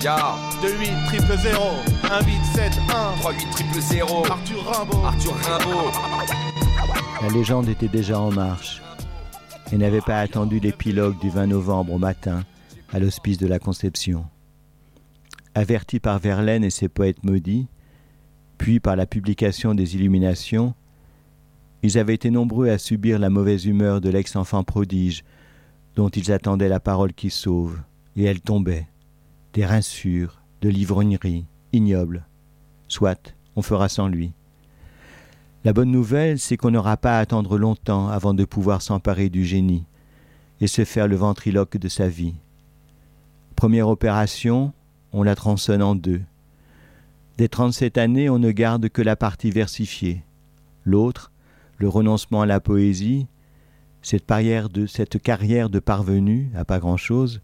Ya 28 000 1871 38 000 Arthur Rimbaud. Arthur Rimbaud. La légende était déjà en marche et n'avait pas attendu l'épilogue du 20 novembre au matin à l'hospice de la Conception. Avertis par Verlaine et ses poètes maudits, puis par la publication des Illuminations, ils avaient été nombreux à subir la mauvaise humeur de l'ex-enfant prodige dont ils attendaient la parole qui sauve, et elle tombait, des rinçures, de l'ivrognerie, ignoble. Soit, on fera sans lui. La bonne nouvelle, c'est qu'on n'aura pas à attendre longtemps avant de pouvoir s'emparer du génie et se faire le ventriloque de sa vie. Première opération, on la tronçonne en deux. Des 37 années, on ne garde que la partie versifiée. L'autre, le renoncement à la poésie, cette carrière de parvenu à pas grand-chose,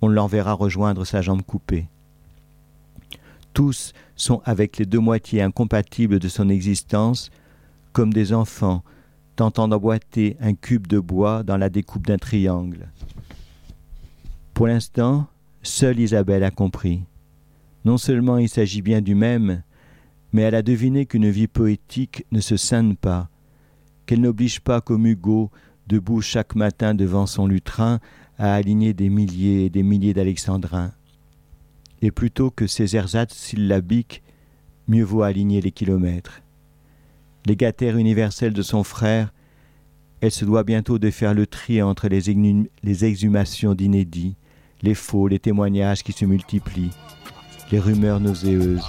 on l'enverra rejoindre sa jambe coupée. Tous sont avec les deux moitiés incompatibles de son existence, comme des enfants tentant d'emboîter un cube de bois dans la découpe d'un triangle. Pour l'instant, seule Isabelle a compris. Non seulement il s'agit bien du même, mais elle a deviné qu'une vie poétique ne se scinde pas, qu'elle n'oblige pas comme Hugo, debout chaque matin devant son lutrin, à aligner des milliers et des milliers d'alexandrins. Et plutôt que ces ersatz syllabiques, mieux vaut aligner les kilomètres. Légataire universelle de son frère, elle se doit bientôt de faire le tri entre les exhumations d'inédits, les faux, les témoignages qui se multiplient, les rumeurs nauséeuses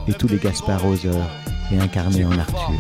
et tous les Gasparoseurs réincarnés en Arthur.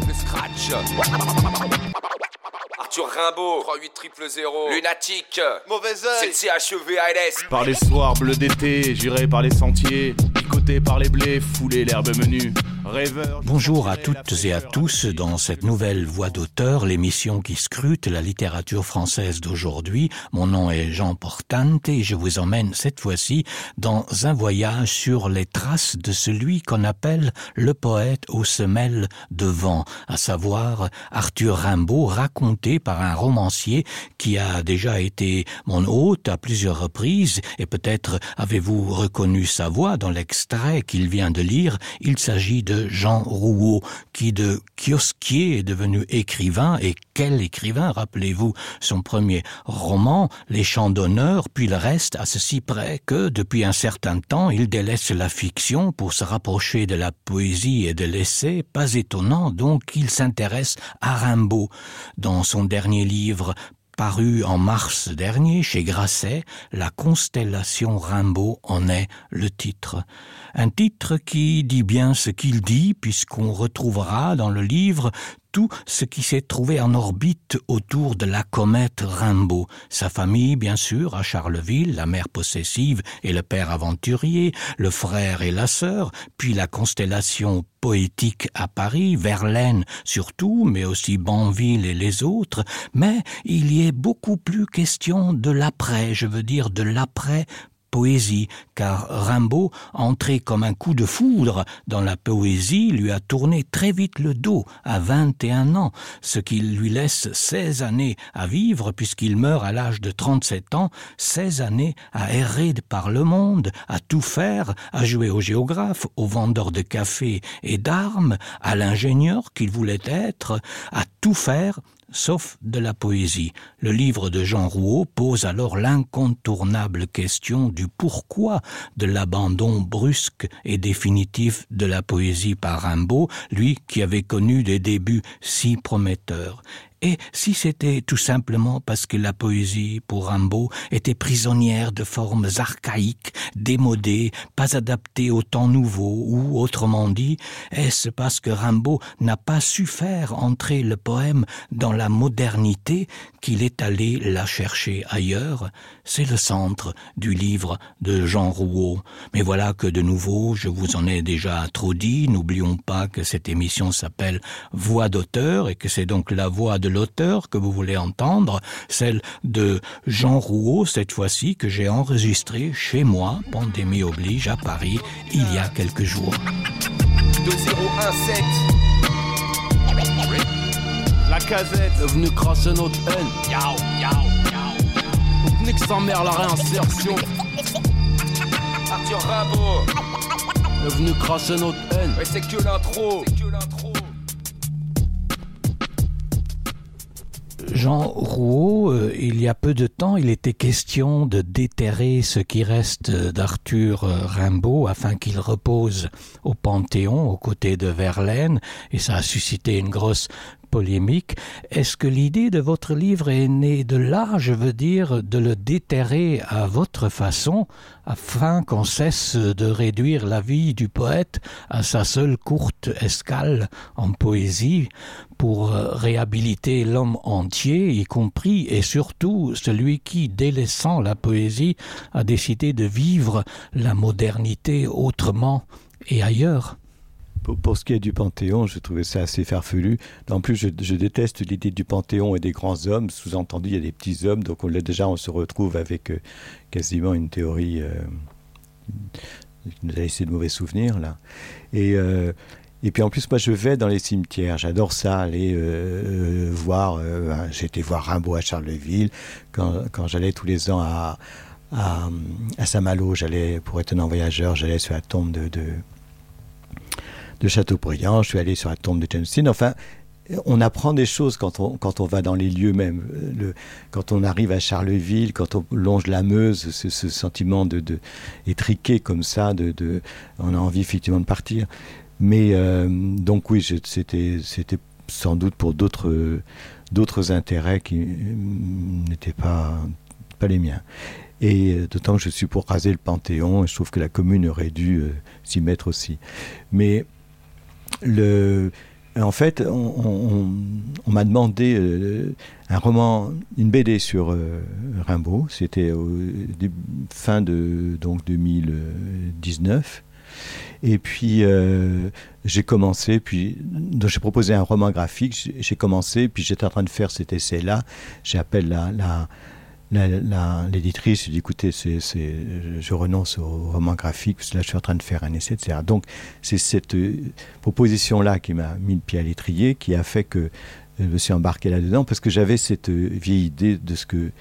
Arthur Rimbaud, 38 000 Lunatique, Mauvais œil. c'est CHEVALS. Par les soirs bleus d'été, j'irai par les sentiers, picoté par les blés, foulé l'herbe menue. Rêveur. Bonjour à toutes et à tous dans cette nouvelle Voix d'auteur, l'émission qui scrute la littérature française d'aujourd'hui. Mon nom est Jean Portante et je vous emmène cette fois-ci dans un voyage sur les traces de celui qu'on appelle le poète aux semelles de vent, à savoir Arthur Rimbaud, raconté par un romancier qui a déjà été mon hôte à plusieurs reprises et peut-être avez-vous reconnu sa voix dans l'extrait qu'il vient de lire. Il s'agit de Jean Rouault, qui de kiosquier est devenu écrivain. Et quel écrivain, rappelez-vous son premier roman, Les Chants d'honneur, puis le reste, à ceci près que, depuis un certain temps, il délaisse la fiction pour se rapprocher de la poésie et de l'essai. Pas étonnant donc qu'il s'intéresse à Rimbaud. Dans son dernier livre, paru en mars dernier chez Grasset, La constellation Rimbaud en est le titre. Un titre qui dit bien ce qu'il dit, puisqu'on retrouvera dans le livre tout ce qui s'est trouvé en orbite autour de la comète Rimbaud. Sa famille, bien sûr, à Charleville, la mère possessive et le père aventurier, le frère et la sœur, puis la constellation poétique à Paris, Verlaine surtout, mais aussi Banville et les autres. Mais il y est beaucoup plus question de l'après, je veux dire de l'après poésie, car Rimbaud, entré comme un coup de foudre dans la poésie, lui a tourné très vite le dos à 21 ans, ce qui lui laisse 16 années à vivre puisqu'il meurt à l'âge de 37 ans, 16 années à errer par le monde, à tout faire, à jouer au géographe, au vendeur de café et d'armes, à l'ingénieur qu'il voulait être, à tout faire sauf de la poésie. Le livre de Jean Rouault pose alors l'incontournable question du pourquoi de l'abandon brusque et définitif de la poésie par Rimbaud, lui qui avait connu des débuts si prometteurs. Et si c'était tout simplement parce que la poésie, pour Rimbaud, était prisonnière de formes archaïques, démodées, pas adaptées au temps nouveau, ou, autrement dit, est-ce parce que Rimbaud n'a pas su faire entrer le poème dans la modernité qu'il est allé la chercher ailleurs? C'est le centre du livre de Jean Rouault. Mais voilà que de nouveau, je vous en ai déjà trop dit, n'oublions pas que cette émission s'appelle Voix d'auteur et que c'est donc la voix de l'auteur que vous voulez entendre, celle de Jean Rouault cette fois-ci que j'ai enregistrée chez moi, pandémie oblige, à Paris, il y a quelques jours. 2017 La casette est venue crasser notre haine. Yao, yao, yao. Nique sa mère la réinsertion. Arthur Rimbaud. Est venu crasser notre haine. Mais c'est que l'intro. Jean Rouault, il y a peu de temps, il était question de déterrer ce qui reste d'Arthur Rimbaud afin qu'il repose au Panthéon aux côtés de Verlaine, et ça a suscité une grosse polémique. Est-ce que l'idée de votre livre est née de là, je veux dire, de le déterrer à votre façon, afin qu'on cesse de réduire la vie du poète à sa seule courte escale en poésie, pour réhabiliter l'homme entier, y compris et surtout celui qui, délaissant la poésie, a décidé de vivre la modernité autrement et ailleurs? Pour ce qui est du Panthéon, je trouvais ça assez farfelu. En plus, je déteste l'idée du Panthéon et des grands hommes. Sous-entendu, il y a des petits hommes. Donc on se retrouve avec quasiment une théorie qui nous a laissé de mauvais souvenirs, là. Et puis en plus, moi, je vais dans les cimetières. J'adore ça, aller voir... j'ai été voir Rimbaud à Charleville. Quand j'allais tous les ans à Saint-Malo, pour être un voyageur, j'allais sur la tombe de Chateaubriand, je suis allé sur la tombe de James Dean. Enfin, on apprend des choses quand on va dans les lieux même. Quand on arrive à Charleville, quand on longe la Meuse, ce sentiment étriqué comme ça, on a envie effectivement de partir. Mais donc oui, c'était sans doute pour d'autres intérêts qui n'étaient pas les miens. Et d'autant que je suis pour raser le Panthéon, et je trouve que la commune aurait dû s'y mettre aussi. Mais en fait, on m'a demandé un roman, une BD sur Rimbaud. C'était fin de 2019. Et puis j'ai commencé, donc j'ai proposé un roman graphique. J'ai commencé, puis j'étais en train de faire cet essai-là. J'appelle l'éditrice, je dis écoutez, je renonce au roman graphique parce que là je suis en train de faire un essai, etc. Donc c'est cette proposition-là qui m'a mis le pied à l'étrier, qui a fait que je me suis embarqué là-dedans, parce que j'avais cette vieille idée de ce que,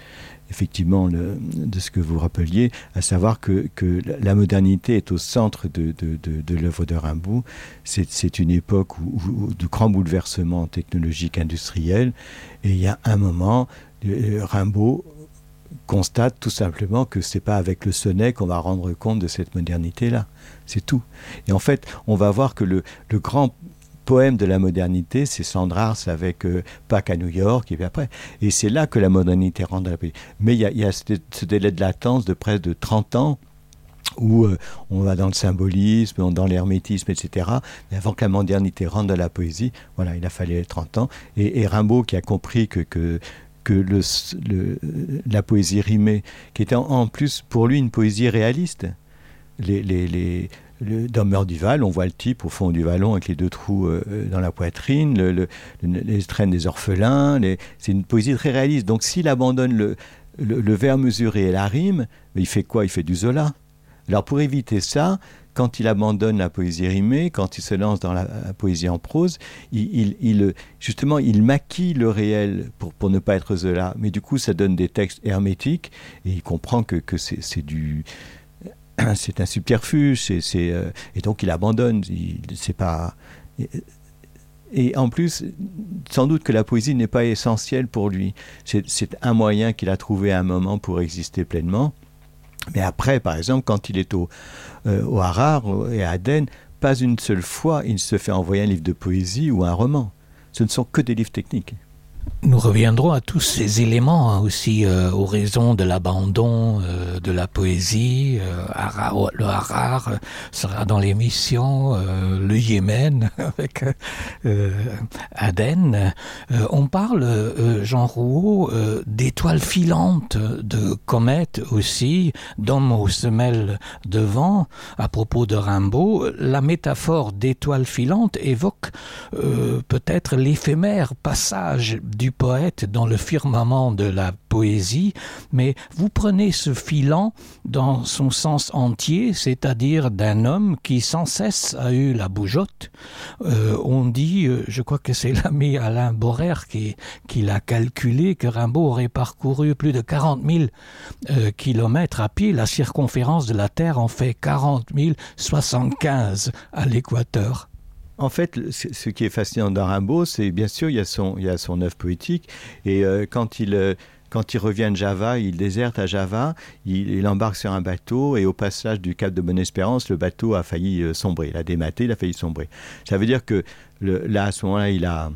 effectivement, de ce que vous rappeliez, à savoir que la modernité est au centre de l'œuvre de Rimbaud. C'est une époque de grands bouleversements technologiques, industriels, et il y a un moment, Rimbaud constate tout simplement que c'est pas avec le sonnet qu'on va rendre compte de cette modernité-là. C'est tout. Et en fait, on va voir que le grand poème de la modernité, c'est Sandrars avec Pâques à New York, et puis après. Et c'est là que la modernité rentre dans la poésie. Mais il y a ce délai de latence de près de 30 ans où on va dans le symbolisme, dans l'hermétisme, etc. Mais avant que la modernité rentre dans la poésie, voilà, il a fallu 30 ans. Et Rimbaud, qui a compris que la poésie rimée, qui était en plus pour lui une poésie réaliste. Dans Meurduval, on voit le type au fond du vallon avec les deux trous dans la poitrine, les traînes des orphelins, c'est une poésie très réaliste. Donc s'il abandonne le vers mesuré et la rime, il fait quoi? Il fait du Zola. Alors pour éviter ça, quand il abandonne la poésie rimée, quand il se lance dans la poésie en prose, justement, il maquille le réel pour ne pas être Zola. Mais du coup, ça donne des textes hermétiques, et il comprend que c'est un subterfuge, et donc il abandonne. C'est pas... Et en plus, sans doute que la poésie n'est pas essentielle pour lui. C'est un moyen qu'il a trouvé à un moment pour exister pleinement. Mais après, par exemple, quand il est au Harar et à Aden, pas une seule fois il se fait envoyer un livre de poésie ou un roman. Ce ne sont que des livres techniques. Nous reviendrons à tous ces éléments aussi aux raisons de l'abandon de la poésie. Le Harar sera dans l'émission, le Yémen avec Aden. On parle, Jean Rouault, d'étoiles filantes, de comètes aussi, d'hommes aux semelles de vent. À propos de Rimbaud, la métaphore d'étoiles filantes évoque peut-être l'éphémère passage du du poète dans le firmament de la poésie, mais vous prenez ce filant dans son sens entier, c'est-à-dire d'un homme qui sans cesse a eu la bougeotte. On dit, je crois que c'est l'ami Alain Borrer qui l'a calculé, que Rimbaud aurait parcouru plus de 40 000 kilomètres à pied. La circonférence de la Terre en fait 40 075 à l'équateur. En fait, ce qui est fascinant dans Rimbaud, c'est bien sûr, il y a son œuvre poétique, et quand il revient de Java, il déserte à Java, il embarque sur un bateau, et au passage du cap de Bonne-Espérance, le bateau a failli sombrer, il a dématé, il a failli sombrer. Ça veut dire que là, à ce moment-là, il a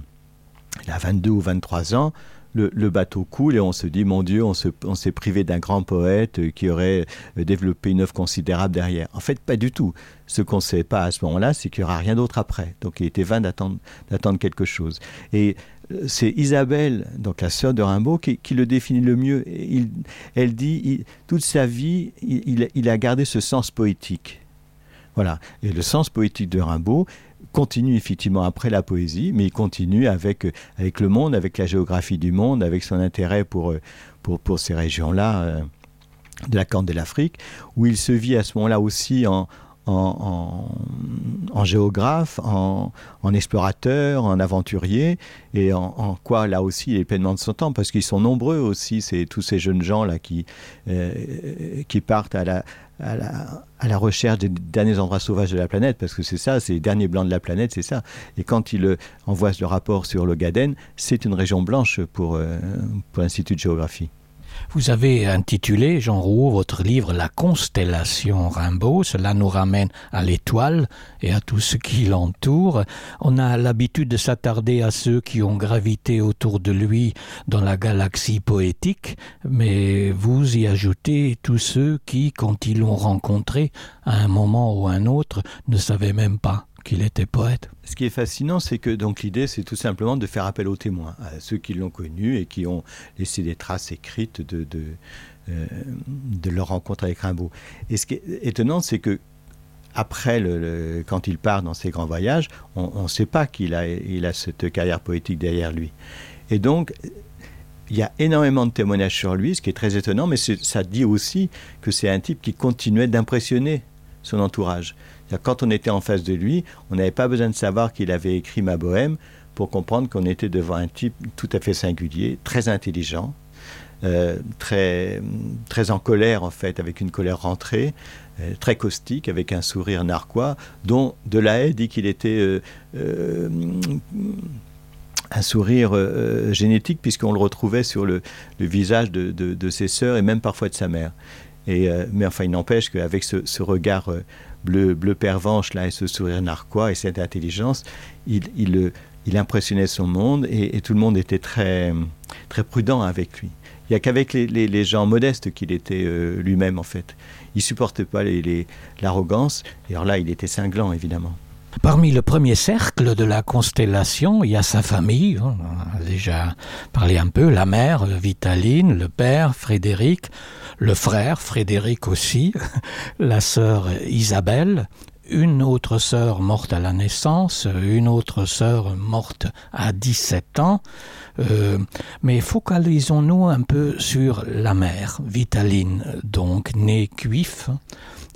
22 ou 23 ans, le bateau coule et on se dit, mon Dieu, on s'est privé d'un grand poète qui aurait développé une œuvre considérable derrière. En fait, pas du tout. Ce qu'on ne sait pas à ce moment-là, c'est qu'il n'y aura rien d'autre après. Donc il était vain d'attendre quelque chose. Et c'est Isabelle, donc la sœur de Rimbaud, qui le définit le mieux. Elle dit, toute sa vie, il a gardé ce sens poétique. Voilà. Et le sens poétique de Rimbaud continue effectivement après la poésie, mais il continue avec le monde, avec la géographie du monde, avec son intérêt pour ces régions-là de la Corne de l'Afrique, où il se vit à ce moment-là aussi en géographe, en explorateur, en aventurier, et en quoi là aussi il est pleinement de son temps, parce qu'ils sont nombreux aussi, tous ces jeunes gens là qui partent à la recherche des derniers endroits sauvages de la planète, parce que c'est ça, c'est les derniers blancs de la planète, c'est ça. Et quand il envoie le rapport sur l'Ogaden, c'est une région blanche pour l'Institut de géographie. Vous avez intitulé, Jean Rouault, votre livre « La constellation Rimbaud ». Cela nous ramène à l'étoile et à tout ce qui l'entoure. On a l'habitude de s'attarder à ceux qui ont gravité autour de lui dans la galaxie poétique, mais vous y ajoutez tous ceux qui, quand ils l'ont rencontré, à un moment ou un autre, ne savaient même pas qu'il était poète. Ce qui est fascinant, c'est que donc l'idée, c'est tout simplement de faire appel aux témoins, à ceux qui l'ont connu et qui ont laissé des traces écrites de leur rencontre avec Rimbaud. Et ce qui est étonnant, c'est que après, quand il part dans ses grands voyages, on ne sait pas qu'il a cette carrière poétique derrière lui. Et donc, il y a énormément de témoignages sur lui, ce qui est très étonnant, mais ça dit aussi que c'est un type qui continuait d'impressionner son entourage. Quand on était en face de lui, on n'avait pas besoin de savoir qu'il avait écrit Ma Bohème pour comprendre qu'on était devant un type tout à fait singulier, très intelligent, très en colère en fait, avec une colère rentrée, très caustique, avec un sourire narquois, dont Delahaye dit qu'il était un sourire génétique, puisqu'on le retrouvait sur le visage de ses sœurs et même parfois de sa mère. Mais enfin, il n'empêche qu'avec ce regard bleu pervenche là, et ce sourire narquois et cette intelligence, il impressionnait son monde et tout le monde était très, très prudent avec lui. Il n'y a qu'avec les gens modestes qu'il était lui-même en fait. Il ne supportait pas l'arrogance, et alors là il était cinglant évidemment. Parmi le premier cercle de la constellation, il y a sa famille, on a déjà parlé un peu, la mère, Vitaline, le père, Frédéric, le frère, Frédéric aussi, la sœur Isabelle, une autre sœur morte à la naissance, une autre sœur morte à 17 ans. Mais focalisons-nous un peu sur la mère, Vitaline, donc née Cuif,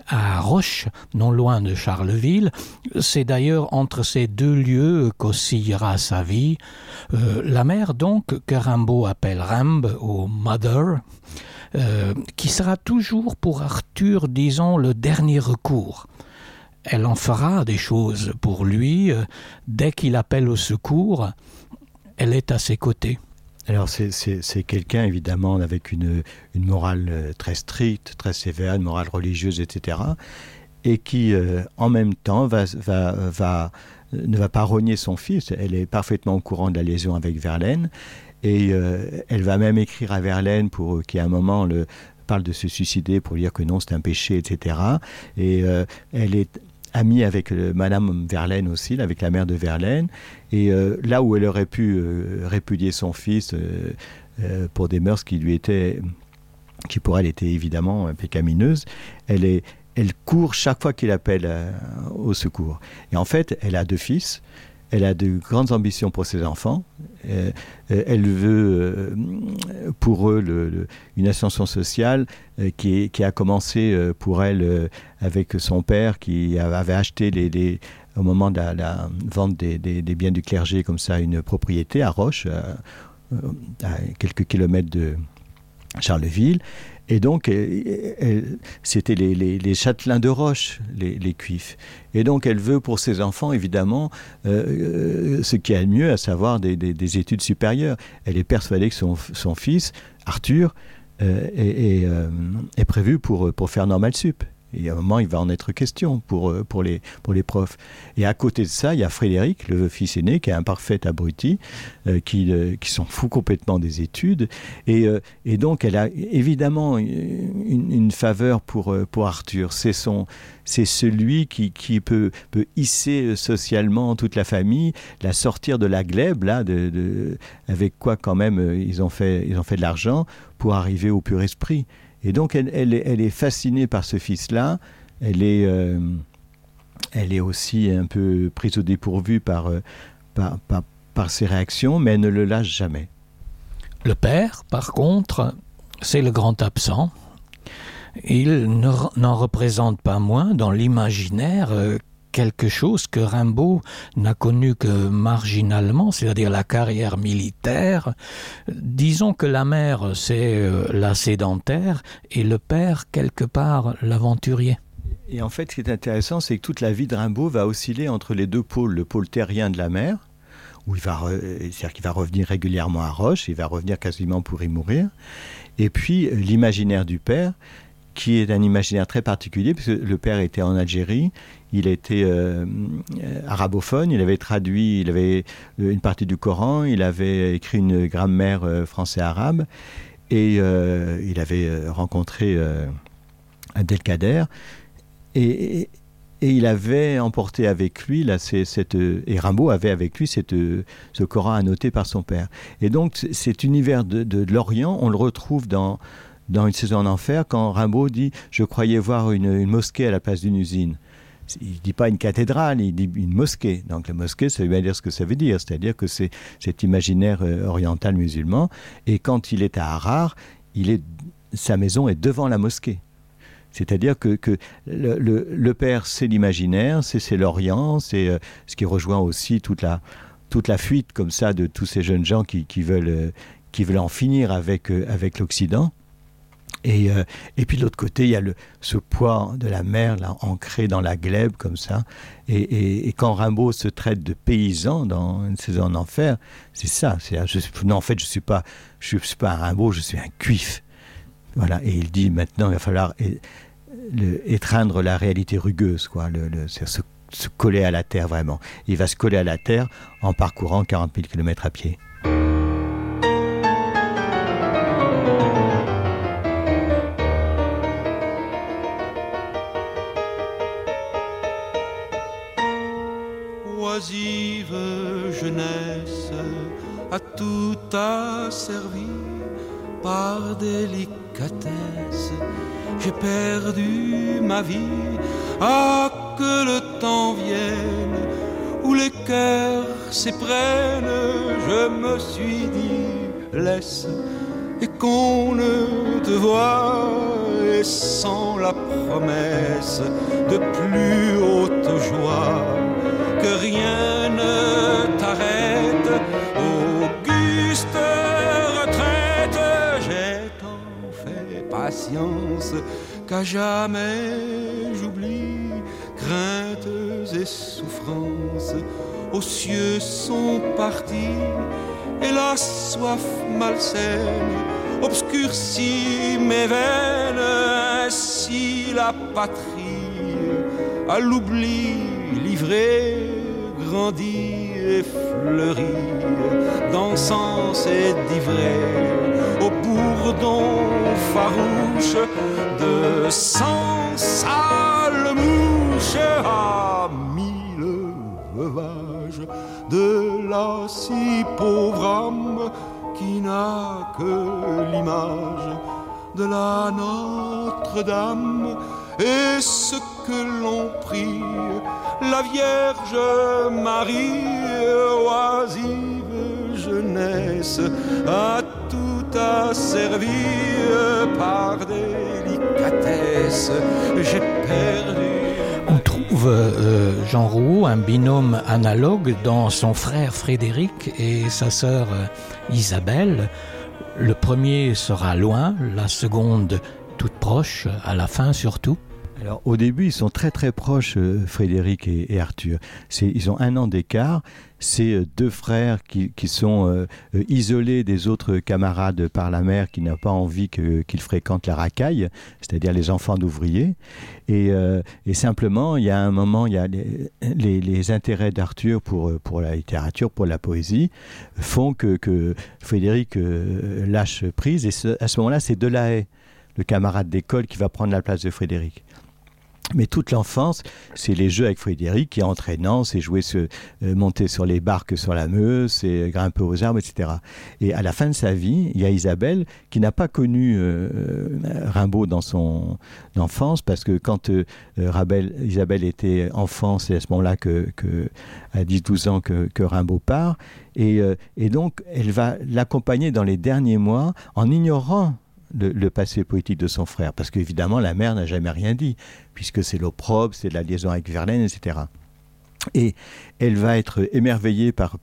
à Roche, non loin de Charleville. C'est d'ailleurs entre ces deux lieux qu'oscillera sa vie. La mère donc, que Rimbaud appelle Rimbe ou Mother, qui sera toujours pour Arthur, disons, le dernier recours. Elle en fera des choses pour lui. Dès qu'il appelle au secours, elle est à ses côtés. Alors c'est quelqu'un évidemment avec une morale très stricte, très sévère, une morale religieuse, etc. Et qui en même temps ne va pas rogner son fils. Elle est parfaitement au courant de la liaison avec Verlaine, et elle va même écrire à Verlaine pour qu'à un moment parle de se suicider, pour dire que non, c'est un péché, etc. Et elle est amie avec Madame Verlaine aussi, avec la mère de Verlaine, et là où elle aurait pu répudier son fils pour des mœurs qui pour elle étaient évidemment pécamineuses, elle court chaque fois qu'il appelle au secours. Et en fait, elle a deux fils, elle a de grandes ambitions pour ses enfants. Elle veut pour eux une ascension sociale qui a commencé pour elle avec son père qui avait acheté au moment de la vente des biens du clergé comme ça une propriété à Roche, à quelques kilomètres de Charleville. Et donc, c'était les châtelains de Roche, les cuifs. Et donc, elle veut pour ses enfants, évidemment, ce qu'il y a de mieux, à savoir des études supérieures. Elle est persuadée que son fils, Arthur, est prévu pour faire Normal Sup. Et à un moment, il va en être question pour les profs. Et à côté de ça, il y a Frédéric, le fils aîné, qui est un parfait abruti, qui s'en fout complètement des études. Et donc, elle a évidemment une faveur pour Arthur. C'est celui qui peut hisser socialement toute la famille, la sortir de la glèbe, là, avec quoi quand même ils ont fait de l'argent pour arriver au pur esprit. Et donc, elle est fascinée par ce fils-là. Elle est aussi un peu prise au dépourvu par ses réactions, mais elle ne le lâche jamais. Le père, par contre, c'est le grand absent. Il n'en représente pas moins dans l'imaginaire quelque chose que Rimbaud n'a connu que marginalement, c'est-à-dire la carrière militaire. Disons que la mère, c'est la sédentaire et le père, quelque part, l'aventurier. Et en fait, ce qui est intéressant, c'est que toute la vie de Rimbaud va osciller entre les deux pôles. Le pôle terrien de la mère, où c'est-à-dire qu'il va revenir régulièrement à Roche, il va revenir quasiment pour y mourir, et puis l'imaginaire du père, qui est un imaginaire très particulier, puisque le père était en Algérie, il était arabophone, il avait traduit, il avait une partie du Coran, il avait écrit une grammaire français-arabe, et il avait rencontré Abdelkader, et il avait emporté avec lui, et Rimbaud avait avec lui ce Coran annoté par son père. Et donc cet univers de l'Orient, on le retrouve dans Une saison en enfer, quand Rimbaud dit « Je croyais voir une mosquée à la place d'une usine ». Il ne dit pas une cathédrale, il dit une mosquée. Donc la mosquée, ça veut bien dire ce que ça veut dire. C'est-à-dire que c'est cet imaginaire oriental musulman. Et quand il est à Harar, sa maison est devant la mosquée. C'est-à-dire que le père, c'est l'imaginaire, c'est l'Orient, c'est ce qui rejoint aussi toute la fuite comme ça de tous ces jeunes gens qui veulent en finir avec l'Occident. Et puis de l'autre côté, il y a ce poids de la mer là, ancré dans la glèbe comme ça. Et quand Rimbaud se traite de paysan dans Une saison en enfer, c'est ça. En fait, je suis pas un Rimbaud, je suis un cuif. Voilà. Et il dit maintenant, il va falloir étreindre la réalité rugueuse, quoi. C'est se coller à la terre vraiment. Il va se coller à la terre en parcourant 40 000 km à pied. Oisive jeunesse, à tout asservi par délicatesse, j'ai perdu ma vie. Ah, que le temps vienne où les cœurs s'éprennent, je me suis dit laisse, et qu'on ne te voie, et sans la promesse de plus haute joie, que rien ne t'arrête, auguste retraite. J'ai tant fait patience qu'à jamais j'oublie craintes et souffrances. Aux cieux sont partis et la soif malsaine obscurcit mes veines. Ainsi la patrie à l'oubli livrée grandit et fleurit d'encens et d'ivrée au bourdon farouche de cent sales mouches. À mille veuvages de la si pauvre âme qui n'a que l'image de la Notre-Dame et ce que l'on prie, la Vierge Marie, oisive jeunesse, a tout asservi par délicatesse. J'ai perdu. On trouve, Jean Rouault, un binôme analogue dans son frère Frédéric et sa sœur Isabelle. Le premier sera loin, la seconde toute proche, à la fin surtout. Alors au début, ils sont très très proches, Frédéric et Arthur. Ils ont 1 an d'écart. C'est 2 frères qui sont isolés des autres camarades par la mère, qui n'a pas envie qu'ils fréquentent la racaille, c'est-à-dire les enfants d'ouvriers. Et simplement, il y a un moment, il y a les intérêts d'Arthur pour la littérature, pour la poésie, font que Frédéric lâche prise. Et à ce moment-là, c'est Delahaye, le camarade d'école, qui va prendre la place de Frédéric. Mais toute l'enfance, c'est les jeux avec Frédéric qui est entraînant, c'est jouer, monter sur les barques sur la Meuse, c'est grimper aux arbres, etc. Et à la fin de sa vie, il y a Isabelle qui n'a pas connu Rimbaud dans son enfance, parce que quand Isabelle était enfant, c'est à ce moment-là à 10-12 ans que Rimbaud part. Et donc, elle va l'accompagner dans les derniers mois en ignorant le passé poétique de son frère, parce qu'évidemment la mère n'a jamais rien dit, puisque c'est l'opprobre, c'est la liaison avec Verlaine, etc. Et elle va être émerveillée par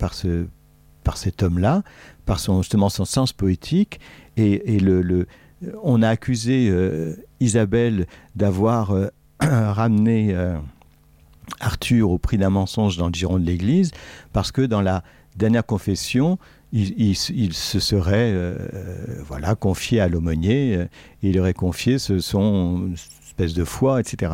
cet homme-là, par justement son sens poétique, et on a accusé Isabelle d'avoir ramené Arthur au prix d'un mensonge dans le giron de l'Église, parce que dans la dernière confession, il se serait confié à l'aumônier, et il aurait confié son espèce de foi, etc.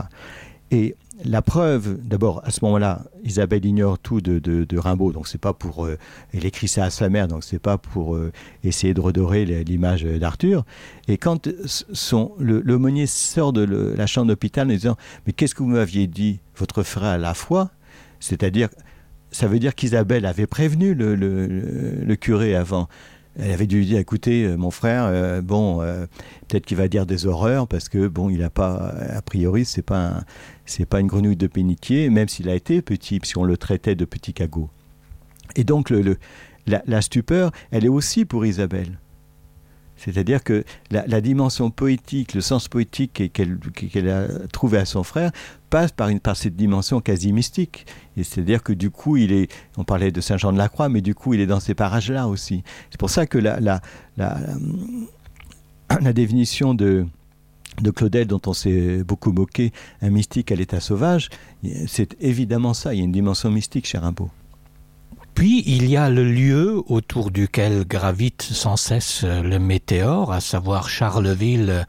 Et la preuve, d'abord, à ce moment-là, Isabelle ignore tout de Rimbaud, donc c'est pas pour... elle écrit ça à sa mère, donc c'est pas pour essayer de redorer l'image d'Arthur. Et quand l'aumônier sort de la chambre d'hôpital en disant « Mais qu'est-ce que vous m'aviez dit, votre frère a la foi ?» C'est-à-dire... Ça veut dire qu'Isabelle avait prévenu le curé avant. Elle avait dû lui dire, écoutez, mon frère, peut-être qu'il va dire des horreurs, parce que il n'a pas, a priori, c'est pas une grenouille de bénitier, même s'il a été petit, puisqu'on le traitait de petit cagot. Et donc la stupeur, elle est aussi pour Isabelle. C'est-à-dire que la dimension poétique, le sens poétique qu'elle a trouvé à son frère passe par cette dimension quasi mystique. Et c'est-à-dire que du coup, on parlait de Saint-Jean-de-la-Croix, mais du coup, il est dans ces parages-là aussi. C'est pour ça que la définition de Claudel, dont on s'est beaucoup moqué, un mystique à l'état sauvage, c'est évidemment ça. Il y a une dimension mystique chez Rimbaud. Puis, il y a le lieu autour duquel gravite sans cesse le météore, à savoir Charleville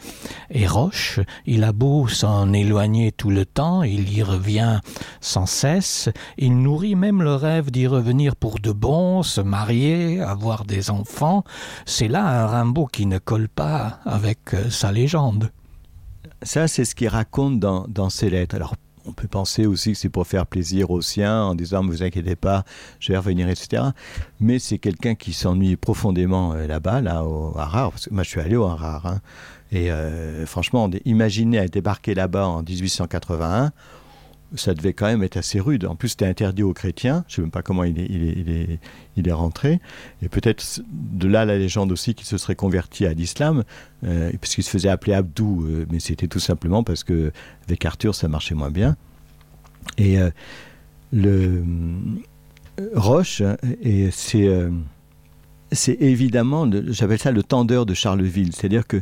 et Roche. Il a beau s'en éloigner tout le temps, il y revient sans cesse. Il nourrit même le rêve d'y revenir pour de bon, se marier, avoir des enfants. C'est là un Rimbaud qui ne colle pas avec sa légende. Ça, c'est ce qu'il raconte dans ses lettres. Alors, on peut penser aussi que c'est pour faire plaisir aux siens, en disant « ne vous inquiétez pas, je vais revenir », etc. Mais c'est quelqu'un qui s'ennuie profondément là-bas, au Harare. Parce que moi, je suis allé au Harare. Hein, et franchement, imaginer débarquer là-bas en 1881, ça devait quand même être assez rude. En plus, c'était interdit aux chrétiens. Je ne sais même pas comment il est rentré. Et peut-être de là la légende aussi qu'il se serait converti à l'islam, puisqu'il se faisait appeler Abdou, mais c'était tout simplement parce qu'avec Arthur, ça marchait moins bien. Et le Roche, et c'est évidemment, j'appelle ça le tendeur de Charleville. C'est-à-dire que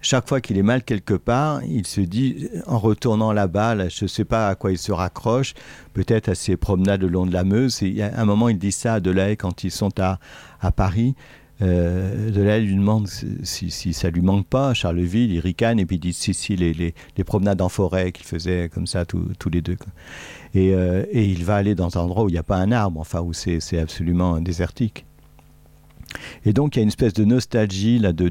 chaque fois qu'il est mal quelque part, il se dit, en retournant là-bas, je ne sais pas à quoi il se raccroche, peut-être à ses promenades le long de la Meuse. Et à un moment, il dit ça à Delahaye quand ils sont à Paris. Delahaye lui demande si ça ne lui manque pas, Charleville, il ricane, et puis il dit si, les promenades en forêt qu'il faisait comme ça tous les deux. Et il va aller dans un endroit où il n'y a pas un arbre, enfin où c'est absolument désertique. Et donc il y a une espèce de nostalgie là, du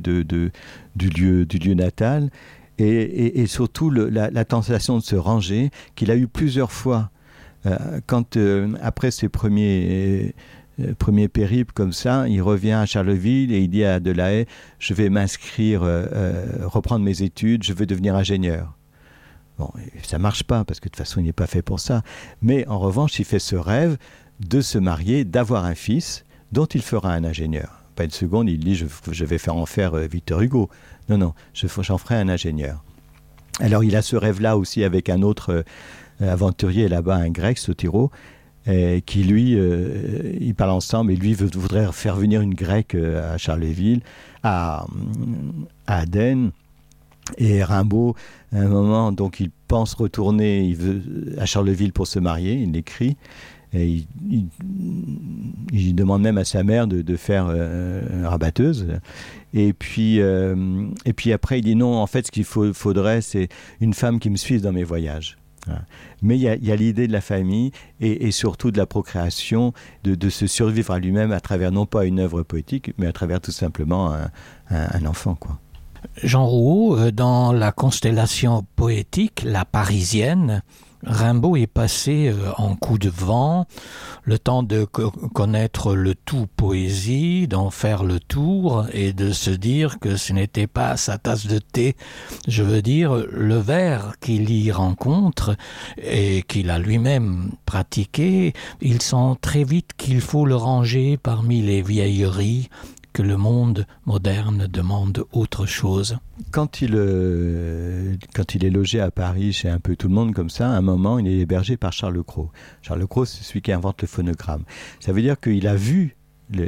lieu natal, et surtout la tentation de se ranger qu'il a eu plusieurs fois quand après ses premiers périples comme ça, il revient à Charleville et il dit à Delahaye, je vais m'inscrire, reprendre mes études, je veux devenir ingénieur. Bon, ça marche pas, parce que de toute façon, il n'est pas fait pour ça. Mais en revanche, il fait ce rêve de se marier, d'avoir un fils dont il fera un ingénieur. Pas une seconde, il dit je vais faire en faire Victor Hugo. Non, j'en ferai un ingénieur. Alors il a ce rêve-là aussi avec un autre aventurier là-bas, un grec, Sotiro, qui lui, ils parlent ensemble et lui voudrait faire venir une grecque à Charleville, à Aden. Et Rimbaud, à un moment, donc il pense retourner à Charleville pour se marier, il l'écrit. Et il demande même à sa mère de faire rabatteuse. Et puis après, il dit non, en fait, ce qu'il faudrait, c'est une femme qui me suive dans mes voyages. Voilà. Mais il y a l'idée de la famille et surtout de la procréation, de se survivre à lui-même à travers non pas une œuvre poétique, mais à travers tout simplement un enfant, quoi. Jean Rouault, dans la constellation poétique, la Parisienne, Rimbaud est passé en coup de vent, le temps de connaître le tout poésie, d'en faire le tour et de se dire que ce n'était pas sa tasse de thé. Je veux dire, le vers qu'il y rencontre et qu'il a lui-même pratiqué, il sent très vite qu'il faut le ranger parmi les vieilleries, que le monde moderne demande autre chose. Quand il est logé à Paris chez un peu tout le monde comme ça, à un moment, il est hébergé par Charles Cros. Charles Cros, c'est celui qui invente le phonogramme. Ça veut dire qu'il a vu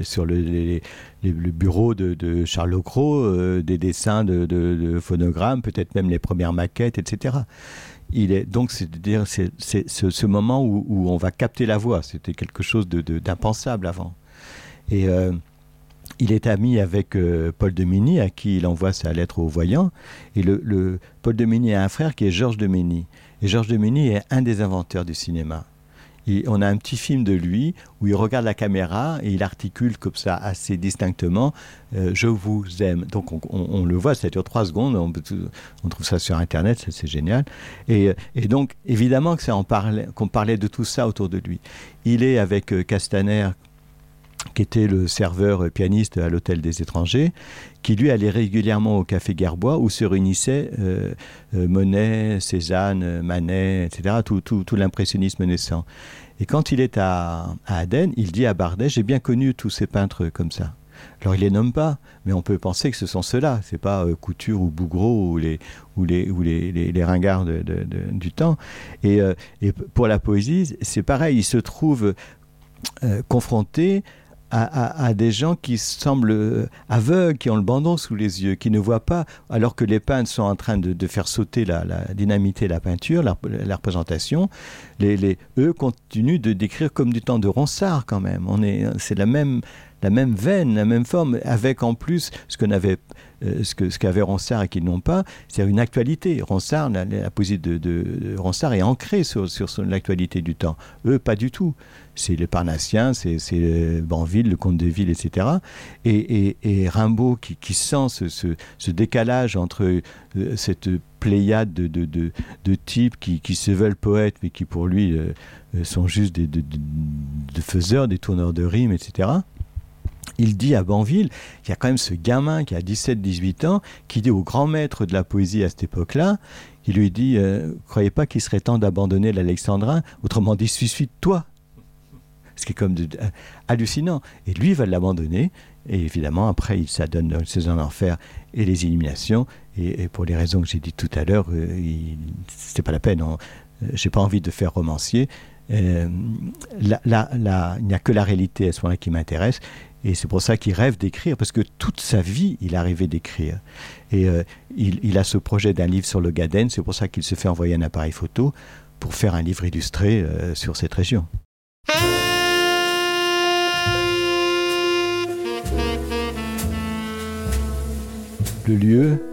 sur le bureau de Charles Cros des dessins de phonogrammes, peut-être même les premières maquettes, etc. Donc, c'est-à-dire, c'est ce moment où on va capter la voix. C'était quelque chose d'impensable avant. Et il est ami avec Paul de Migny, à qui il envoie sa lettre au voyant. Et Paul de Migny a un frère qui est Georges de Migny. Et Georges de Migny est un des inventeurs du cinéma. On a un petit film de lui où il regarde la caméra et il articule comme ça assez distinctement « Je vous aime ». Donc on le voit, ça dure 3 secondes, on trouve ça sur Internet, c'est génial. Et donc évidemment qu'on parlait de tout ça autour de lui. Il est avec Castaner, qui était le serveur pianiste à l'Hôtel des Étrangers, qui lui allait régulièrement au Café Gerbois où se réunissaient Monet, Cézanne, Manet, etc., tout l'impressionnisme naissant. Et quand il est à Aden, il dit à Bardet « J'ai bien connu tous ces peintres comme ça ». Alors il les nomme pas, mais on peut penser que ce sont ceux-là. C'est pas Couture ou Bouguereau ou les ringards du temps. Et pour la poésie, c'est pareil. Il se trouve confronté à des gens qui semblent aveugles, qui ont le bandon sous les yeux, qui ne voient pas, alors que les peintres sont en train de faire sauter dynamiter la peinture, la représentation. Eux continuent de décrire comme du temps de Ronsard quand même. C'est la même veine, la même forme, avec en plus ce qu'avait Ronsard et qu'ils n'ont pas, c'est une actualité. Ronsard, la poésie de Ronsard est ancrée sur l'actualité du temps. Eux, pas du tout. C'est les Parnassiens, c'est Banville, le Comte de Ville, etc. Et Rimbaud qui sent ce décalage entre cette pléiade de types qui se veulent poètes, mais qui pour lui sont juste de faiseurs, des tourneurs de rimes, etc. Il dit à Banville, il y a quand même ce gamin qui a 17-18 ans, qui dit au grand maître de la poésie à cette époque-là, il lui dit « Croyez pas qu'il serait temps d'abandonner l'Alexandrin, autrement dit, suis-toi ». Ce qui est comme hallucinant. Et lui, il va l'abandonner. Et évidemment, après, ça donne le César d'enfer et les Illuminations. Et pour les raisons que j'ai dites tout à l'heure, c'était pas la peine. J'ai pas envie de faire romancier. Il n'y a que la réalité à ce moment-là qui m'intéresse. Et c'est pour ça qu'il rêve d'écrire, parce que toute sa vie, il a rêvé d'écrire. Et il a ce projet d'un livre sur le Gaden. C'est pour ça qu'il se fait envoyer un appareil photo pour faire un livre illustré sur cette région. Le lieu,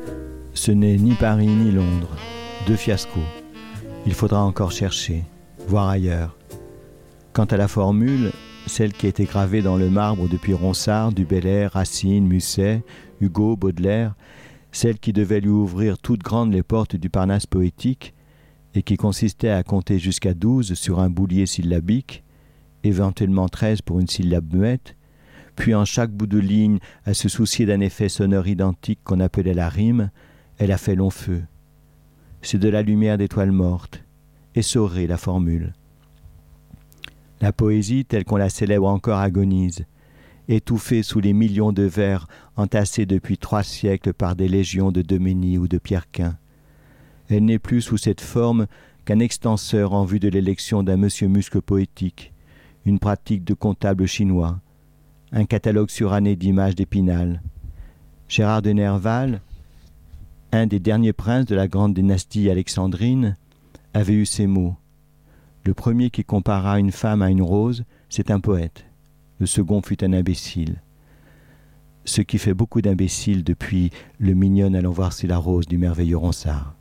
ce n'est ni Paris ni Londres, 2 fiascos. Il faudra encore chercher, voir ailleurs. Quant à la formule, celle qui a été gravée dans le marbre depuis Ronsard, Du Bellay, Racine, Musset, Hugo, Baudelaire, celle qui devait lui ouvrir toutes grandes les portes du Parnasse poétique et qui consistait à compter jusqu'à 12 sur un boulier syllabique, éventuellement 13 pour une syllabe muette, puis en chaque bout de ligne à se soucier d'un effet sonore identique qu'on appelait la rime, elle a fait long feu. c'est de la lumière d'étoiles mortes. Essorée, la formule. La poésie, telle qu'on la célèbre encore, agonise, étouffée sous les millions de vers entassés depuis 3 siècles par des légions de Deménie ou de Pierrequin. Elle n'est plus sous cette forme qu'un extenseur en vue de l'élection d'un monsieur muscle poétique, une pratique de comptable chinois, un catalogue suranné d'images d'Épinal. Gérard de Nerval, un des derniers princes de la grande dynastie alexandrine, avait eu ces mots. Le premier qui compara une femme à une rose, c'est un poète. Le second fut un imbécile. Ce qui fait beaucoup d'imbéciles depuis le mignonne allons voir si la rose du merveilleux Ronsard.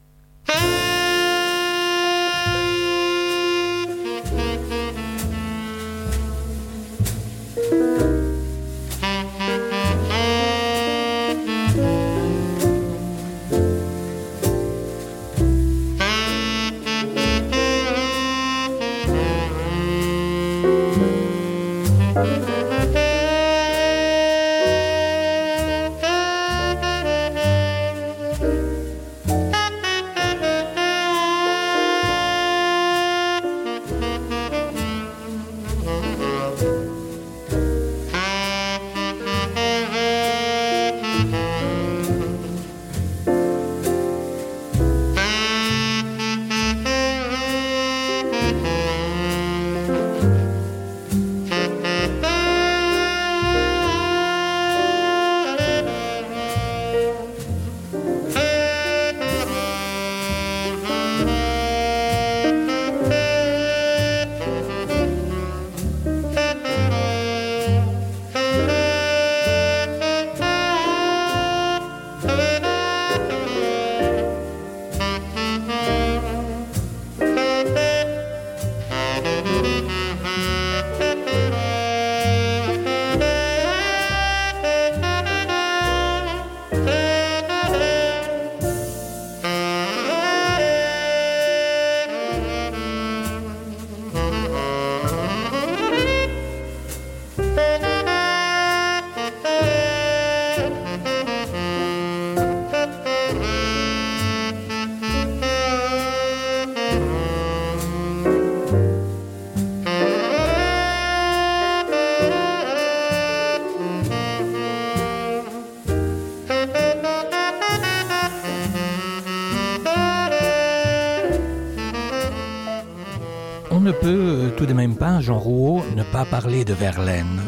ne peut tout de même pas, Jean Rouault, ne pas parler de Verlaine.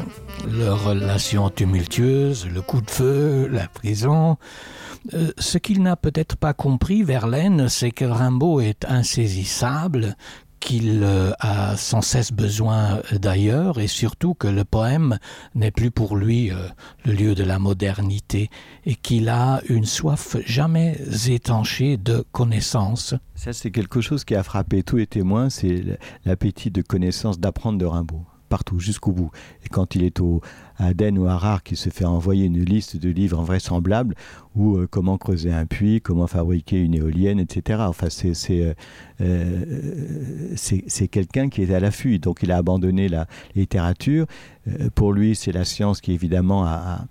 Leur relation tumultueuse, le coup de feu, la prison. Ce qu'il n'a peut-être pas compris, Verlaine, c'est que Rimbaud est insaisissable, qu'il a sans cesse besoin d'ailleurs, et surtout que le poème n'est plus pour lui le lieu de la modernité, et qu'il a une soif jamais étanchée de connaissance. Ça, c'est quelque chose qui a frappé tous les témoins, c'est l'appétit de connaissance, d'apprendre de Rimbaud, partout, jusqu'au bout. Et quand il est à Aden ou à Harare, qu'il se fait envoyer une liste de livres invraisemblables, ou comment creuser un puits, comment fabriquer une éolienne, etc. Enfin, c'est quelqu'un qui est à l'affût, donc il a abandonné la littérature. Pour lui, c'est la science qui, évidemment, a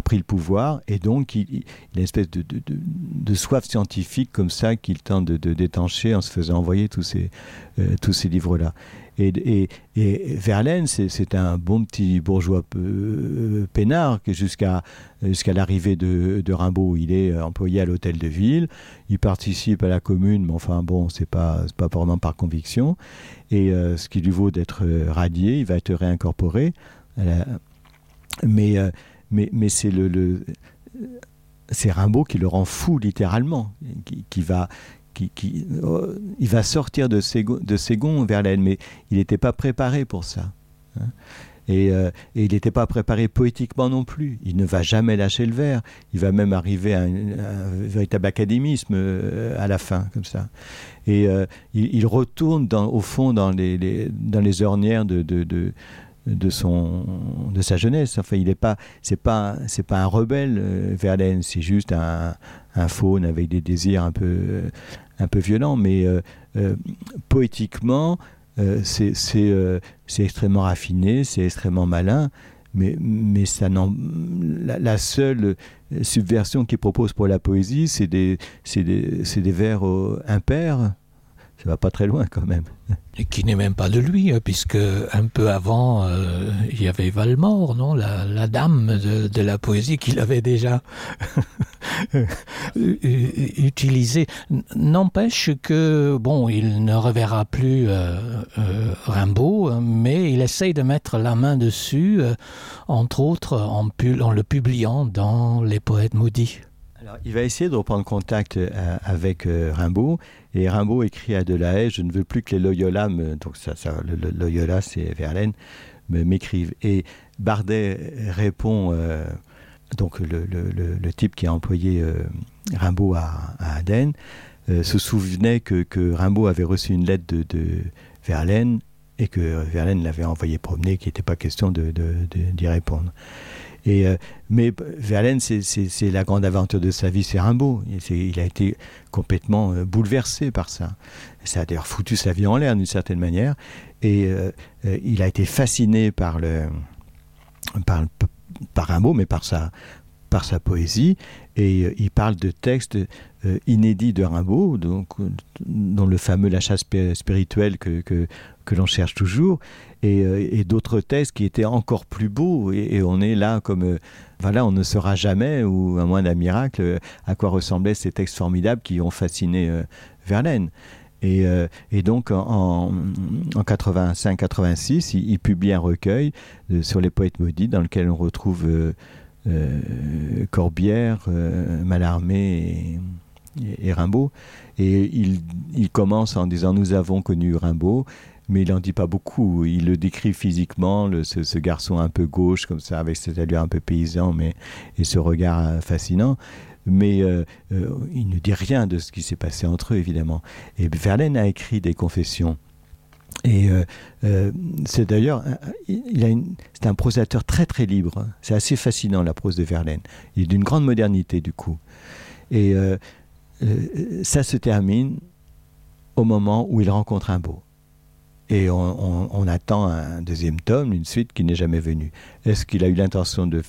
pris le pouvoir, et donc il a une espèce de soif scientifique comme ça qu'il tente de détancher en se faisant envoyer tous ces livres-là. Et Verlaine, c'est un bon petit bourgeois peinard que jusqu'à l'arrivée de Rimbaud. Il est employé à l'hôtel de ville, il participe à la commune, mais enfin bon, c'est pas vraiment par conviction. Et ce qui lui vaut d'être radié, il va être réincorporé. Mais c'est Rimbaud qui le rend fou littéralement, il va sortir de ses gonds, Verlaine, mais il n'était pas préparé pour ça. Hein. Et il n'était pas préparé poétiquement non plus. Il ne va jamais lâcher le vers. Il va même arriver à un véritable académisme à la fin, comme ça. Et il retourne au fond dans les ornières de sa jeunesse. Enfin, c'est pas un rebelle, Verlaine, c'est juste un faune avec des désirs un peu violents, mais poétiquement, c'est extrêmement raffiné, c'est extrêmement malin, mais ça la seule subversion qu'il propose pour la poésie, c'est des vers impairs. Ça va pas très loin quand même. Et qui n'est même pas de lui, puisque un peu avant, il y avait Valmore, non, la dame de la poésie qu'il avait déjà utilisée. N'empêche que, bon, il ne reverra plus Rimbaud, mais il essaye de mettre la main dessus, entre autres en le publiant dans Les Poètes maudits. Alors, il va essayer de reprendre contact avec Rimbaud, et Rimbaud écrit à Delahaye « Je ne veux plus que les Loyola donc le Loyola c'est Verlaine, m'écrivent ». Et Bardet répond, donc le type qui a employé Rimbaud à Aden, se souvenait que Rimbaud avait reçu une lettre de Verlaine, et que Verlaine l'avait envoyé promener, qu'il n'était pas question d'y répondre. Mais Verlaine, c'est la grande aventure de sa vie, c'est Rimbaud. Il a été complètement bouleversé par ça. Ça a d'ailleurs foutu sa vie en l'air d'une certaine manière. Et il a été fasciné par Rimbaud, mais par sa poésie. Et il parle de textes inédits de Rimbaud, dont le fameux La chasse spirituelle que l'on cherche toujours. Et d'autres textes qui étaient encore plus beaux, et on est là comme voilà, on ne saura jamais, ou à moins d'un miracle, à quoi ressemblaient ces textes formidables qui ont fasciné Verlaine. Et donc en 85-86, il publie un recueil sur les poètes maudits dans lequel on retrouve Corbière, Mallarmé et Rimbaud. Et il commence en disant « Nous avons connu Rimbaud », mais il n'en dit pas beaucoup. Il le décrit physiquement, ce garçon un peu gauche, comme ça, avec cette allure un peu paysan, et ce regard fascinant. Mais il ne dit rien de ce qui s'est passé entre eux, évidemment. Et Verlaine a écrit des confessions. Et c'est d'ailleurs, c'est un prosateur très très libre. C'est assez fascinant, la prose de Verlaine. Il est d'une grande modernité, du coup. Et ça se termine au moment où il rencontre Rimbaud. Et on attend un deuxième tome, une suite qui n'est jamais venue. Est-ce qu'il a eu l'intention de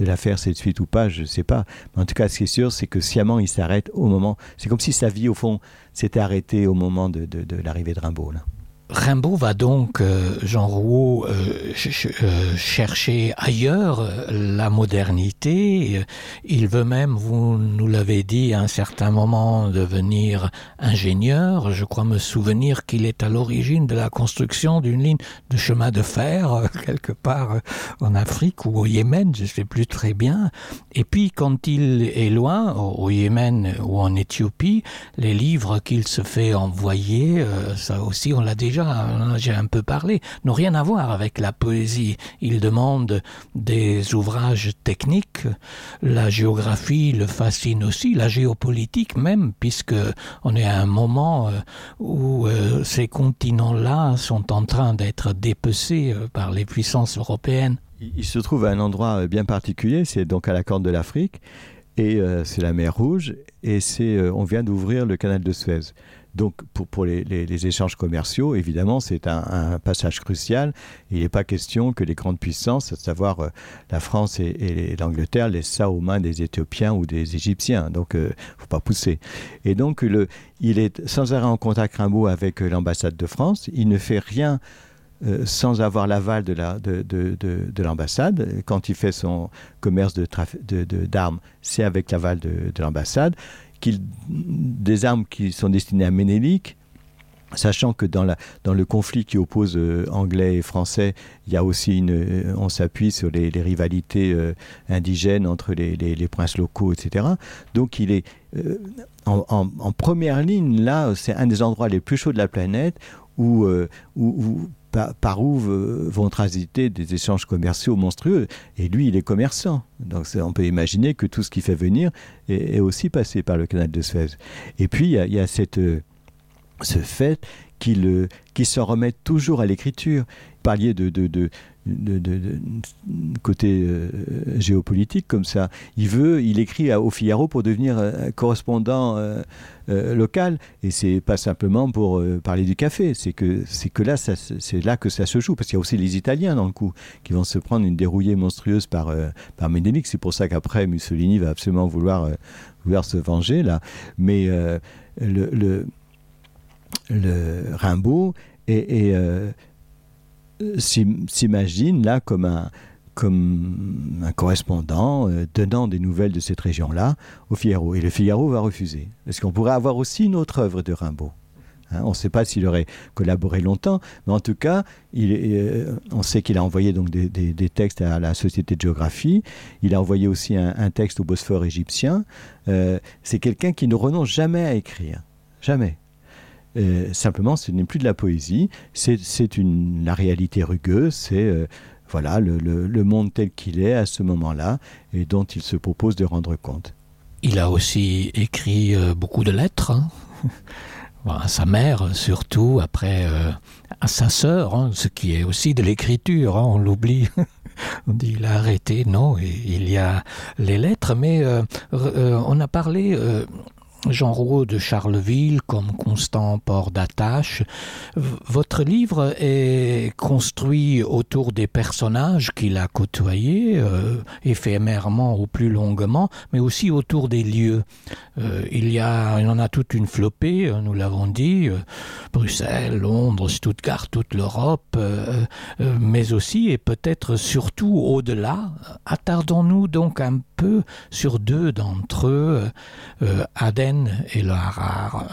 la faire cette suite ou pas? Je ne sais pas. Mais en tout cas, ce qui est sûr, c'est que sciemment, il s'arrête au moment... C'est comme si sa vie, au fond, s'était arrêtée au moment de l'arrivée de Rimbaud, là. Rimbaud va donc, Jean Rouault, chercher ailleurs la modernité. Il veut même, vous nous l'avez dit, à un certain moment devenir ingénieur. Je crois me souvenir qu'il est à l'origine de la construction d'une ligne de chemin de fer, quelque part en Afrique ou au Yémen, je ne sais plus très bien. Et puis, quand il est loin, au Yémen ou en Éthiopie, les livres qu'il se fait envoyer, ça aussi on l'a déjà, j'ai un peu parlé, n'ont rien à voir avec la poésie. Il demande des ouvrages techniques. La géographie le fascine aussi, la géopolitique même, puisque on est à un moment où ces continents-là sont en train d'être dépecés par les puissances européennes. Il se trouve à un endroit bien particulier, c'est donc à la Corne de l'Afrique, et c'est la mer Rouge, et on vient d'ouvrir le canal de Suez. Donc pour les échanges commerciaux, évidemment, c'est un passage crucial. Il n'est pas question que les grandes puissances, à savoir la France et l'Angleterre, laissent ça aux mains des Éthiopiens ou des Égyptiens. Donc, il ne faut pas pousser. Et donc, il est sans arrêt en contact Rimbaud avec l'ambassade de France. Il ne fait rien sans avoir l'aval de l'ambassade. Quand il fait son commerce d'armes, c'est avec l'aval de l'ambassade. Des armes qui sont destinées à Ménélique, sachant que dans le conflit qui oppose anglais et français, il y a aussi on s'appuie sur les rivalités indigènes entre les princes locaux, etc. Donc il est en première ligne, là, c'est un des endroits les plus chauds de la planète par où vont transiter des échanges commerciaux monstrueux. Et lui, il est commerçant. Donc on peut imaginer que tout ce qui fait venir est aussi passé par le canal de Suez. Et puis, il y a ce fait qu'il s'en remet toujours à l'écriture. parliez de côté géopolitique comme ça. Il écrit au Figaro pour devenir correspondant local, et c'est pas simplement pour parler du café. C'est que là, c'est là que ça se joue, parce qu'il y a aussi les Italiens dans le coup qui vont se prendre une dérouillée monstrueuse par Médénic. C'est pour ça qu'après Mussolini va absolument vouloir se venger là. Mais le Rimbaud s'imagine là comme un correspondant donnant des nouvelles de cette région-là au Figaro. Et le Figaro va refuser. Parce qu'on pourrait avoir aussi une autre œuvre de Rimbaud. On ne sait pas s'il aurait collaboré longtemps, mais en tout cas, on sait qu'il a envoyé donc des textes à la Société de géographie. Il a envoyé aussi un texte au Bosphore égyptien. C'est quelqu'un qui ne renonce jamais à écrire. Jamais. Simplement, ce n'est plus de la poésie, c'est la réalité rugueuse, c'est voilà, le monde tel qu'il est à ce moment-là et dont il se propose de rendre compte. Il a aussi écrit beaucoup de lettres, hein. À sa mère surtout, après à sa sœur, hein, ce qui est aussi de l'écriture, hein, on l'oublie. On dit il a arrêté, non, il y a les lettres, mais on a parlé... Jean Rouault de Charleville comme constant port d'attache. Votre livre est construit autour des personnages qu'il a côtoyés, éphémèrement ou plus longuement, mais aussi autour des lieux. Il en a toute une flopée, nous l'avons dit, Bruxelles, Londres, Stuttgart, toute l'Europe, mais aussi et peut-être surtout au-delà. Attardons-nous donc un peu sur deux d'entre eux, Aden et le Harar.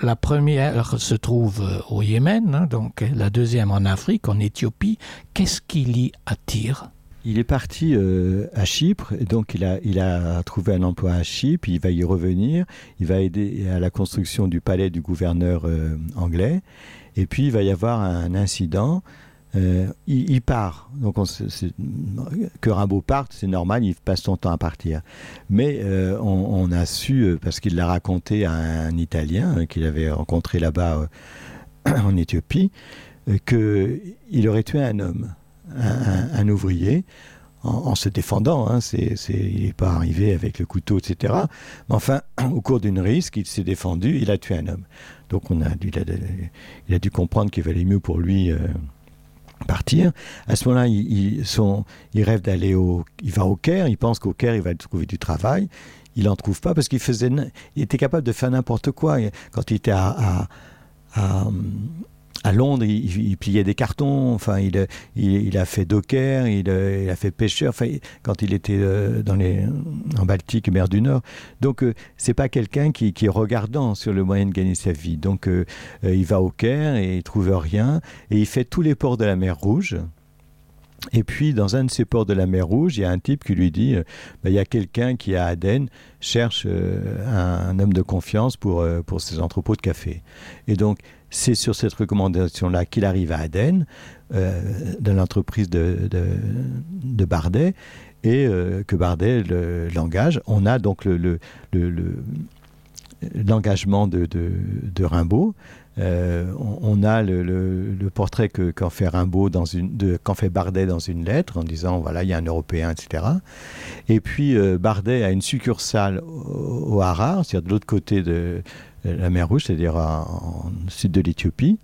La première se trouve au Yémen, hein, donc la deuxième en Afrique, en Éthiopie. Qu'est-ce qui l'y attire ? Il est parti à Chypre, et donc il a trouvé un emploi à Chypre, il va y revenir, il va aider à la construction du palais du gouverneur anglais, et puis il va y avoir un incident. Il part, donc que Rimbaud parte, c'est normal, il passe son temps à partir. Mais on a su, parce qu'il l'a raconté à un Italien qu'il avait rencontré là-bas en Éthiopie, qu'il aurait tué un homme, un ouvrier, en se défendant. Hein, il n'est pas arrivé avec le couteau, etc. Mais enfin, au cours d'une risque, il s'est défendu, il a tué un homme. Donc il a dû comprendre qu'il valait mieux pour lui... partir. À ce moment-là, il rêve d'aller il va au Caire, il pense qu'au Caire, il va trouver du travail. Il n'en trouve pas parce qu'il était capable de faire n'importe quoi. Quand il était à Londres, il pliait des cartons, enfin, il a fait docker, il a fait pêcheur, enfin, quand il était en Baltique, mer du Nord. Donc, c'est pas quelqu'un qui est regardant sur le moyen de gagner sa vie. Donc, il va au Caire et il trouve rien, et il fait tous les ports de la mer Rouge. Et puis, dans un de ces ports de la mer Rouge, il y a un type qui lui dit il y a quelqu'un qui, à Aden, cherche un homme de confiance pour ses entrepôts de café. Et donc, c'est sur cette recommandation-là qu'il arrive à Aden, dans l'entreprise de Bardet, et que Bardet l'engage. On a donc l'engagement de Rimbaud. On a le portrait qu'en fait Rimbaud qu'en fait Bardet dans une lettre en disant voilà, il y a un Européen, etc. Et puis Bardet a une succursale au Harar, c'est-à-dire de l'autre côté de la mer Rouge, c'est-à-dire en sud de l'Éthiopie.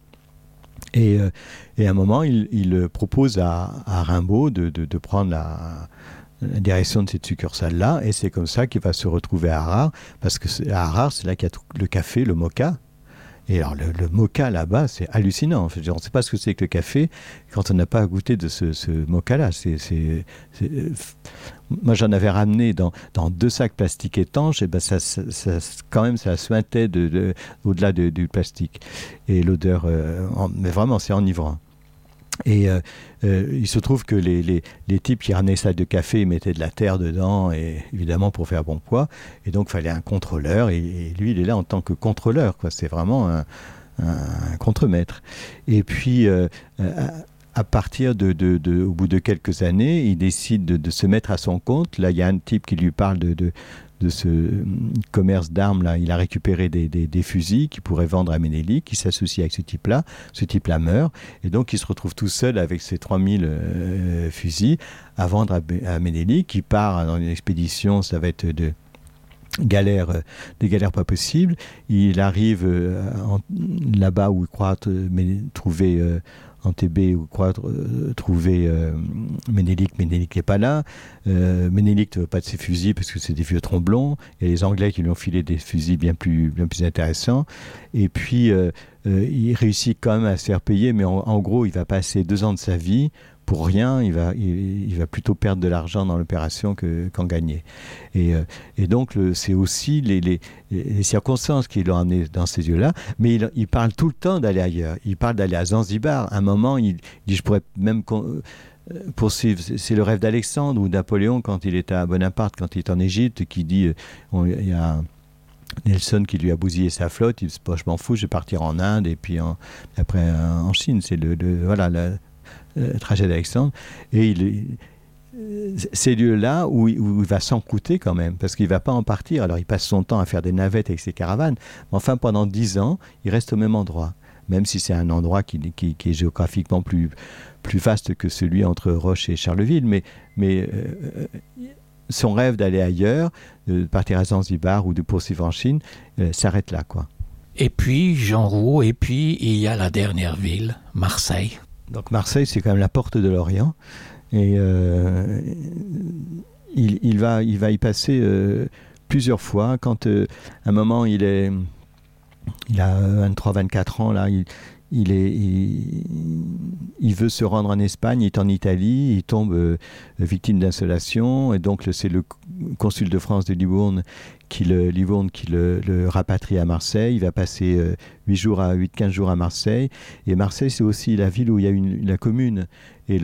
Et à un moment, il propose à Rimbaud de prendre la direction de cette succursale-là, et c'est comme ça qu'il va se retrouver à Harar, parce que à Harar, c'est là qu'il y a le café, le moka. Et alors, le moka là-bas, c'est hallucinant. On ne sait pas ce que c'est que le café quand on n'a pas goûté de ce moka-là. Moi, j'en avais ramené dans 2 sacs plastiques étanches, et ben quand même, ça suintait au-delà du plastique. Et l'odeur, mais vraiment, c'est enivrant. Et il se trouve que les types qui ramenaient ça de café, ils mettaient de la terre dedans, et évidemment pour faire bon poids, et donc il fallait un contrôleur, et lui il est là en tant que contrôleur, quoi. C'est vraiment un contremaître. Et puis à partir au bout de quelques années, il décide de se mettre à son compte. Là, il y a un type qui lui parle de ce commerce d'armes. Là, il a récupéré des fusils qu'il pourrait vendre à Ménélique, qui s'associe avec ce type-là. Ce type-là meurt, et donc il se retrouve tout seul avec ses 3000 fusils à vendre à Ménélique, qui part dans une expédition, ça va être des galères pas possibles. Il arrive là-bas où il croit trouver Antébé, où croit trouver Ménélique. Ménélique n'est pas là. Ménélique ne veut pas de ses fusils parce que c'est des vieux tromblons. Il y a les Anglais qui lui ont filé des fusils bien plus intéressants. Et puis, il réussit quand même à se faire payer, mais en gros, il va passer 2 ans de sa vie pour rien. Il va plutôt perdre de l'argent dans l'opération qu'en gagner. Et donc, c'est aussi les circonstances qui l'ont amené dans ces lieux-là. Mais il parle tout le temps d'aller ailleurs. Il parle d'aller à Zanzibar. À un moment, il dit, je pourrais même poursuivre. C'est le rêve d'Alexandre ou Napoléon quand il est à Bonaparte, quand il est en Égypte, qui dit, il y a Nelson qui lui a bousillé sa flotte. Il dit, je m'en fous, je vais partir en Inde et puis après en Chine. C'est le trajet d'Alexandre. Et ces lieux-là où il va s'encrouter quand même, parce qu'il ne va pas en partir. Alors il passe son temps à faire des navettes avec ses caravanes, mais enfin pendant 10 ans, il reste au même endroit, même si c'est un endroit qui est géographiquement plus vaste que celui entre Roche et Charleville, mais son rêve d'aller ailleurs, de partir à Zanzibar ou de poursuivre en Chine, s'arrête là, quoi. Et puis, Jean Rouault, et puis il y a la dernière ville, Marseille. Donc Marseille, c'est quand même la porte de l'Orient. Et il va y passer plusieurs fois. Quand à un moment il a 23-24 ans, là, il veut se rendre en Espagne, il est en Italie, il tombe victime d'insolation, et donc c'est le consul de France de Livourne qui le rapatrie à Marseille. Il va passer 8-15 jours à Marseille, et Marseille, c'est aussi la ville où il y a la commune, et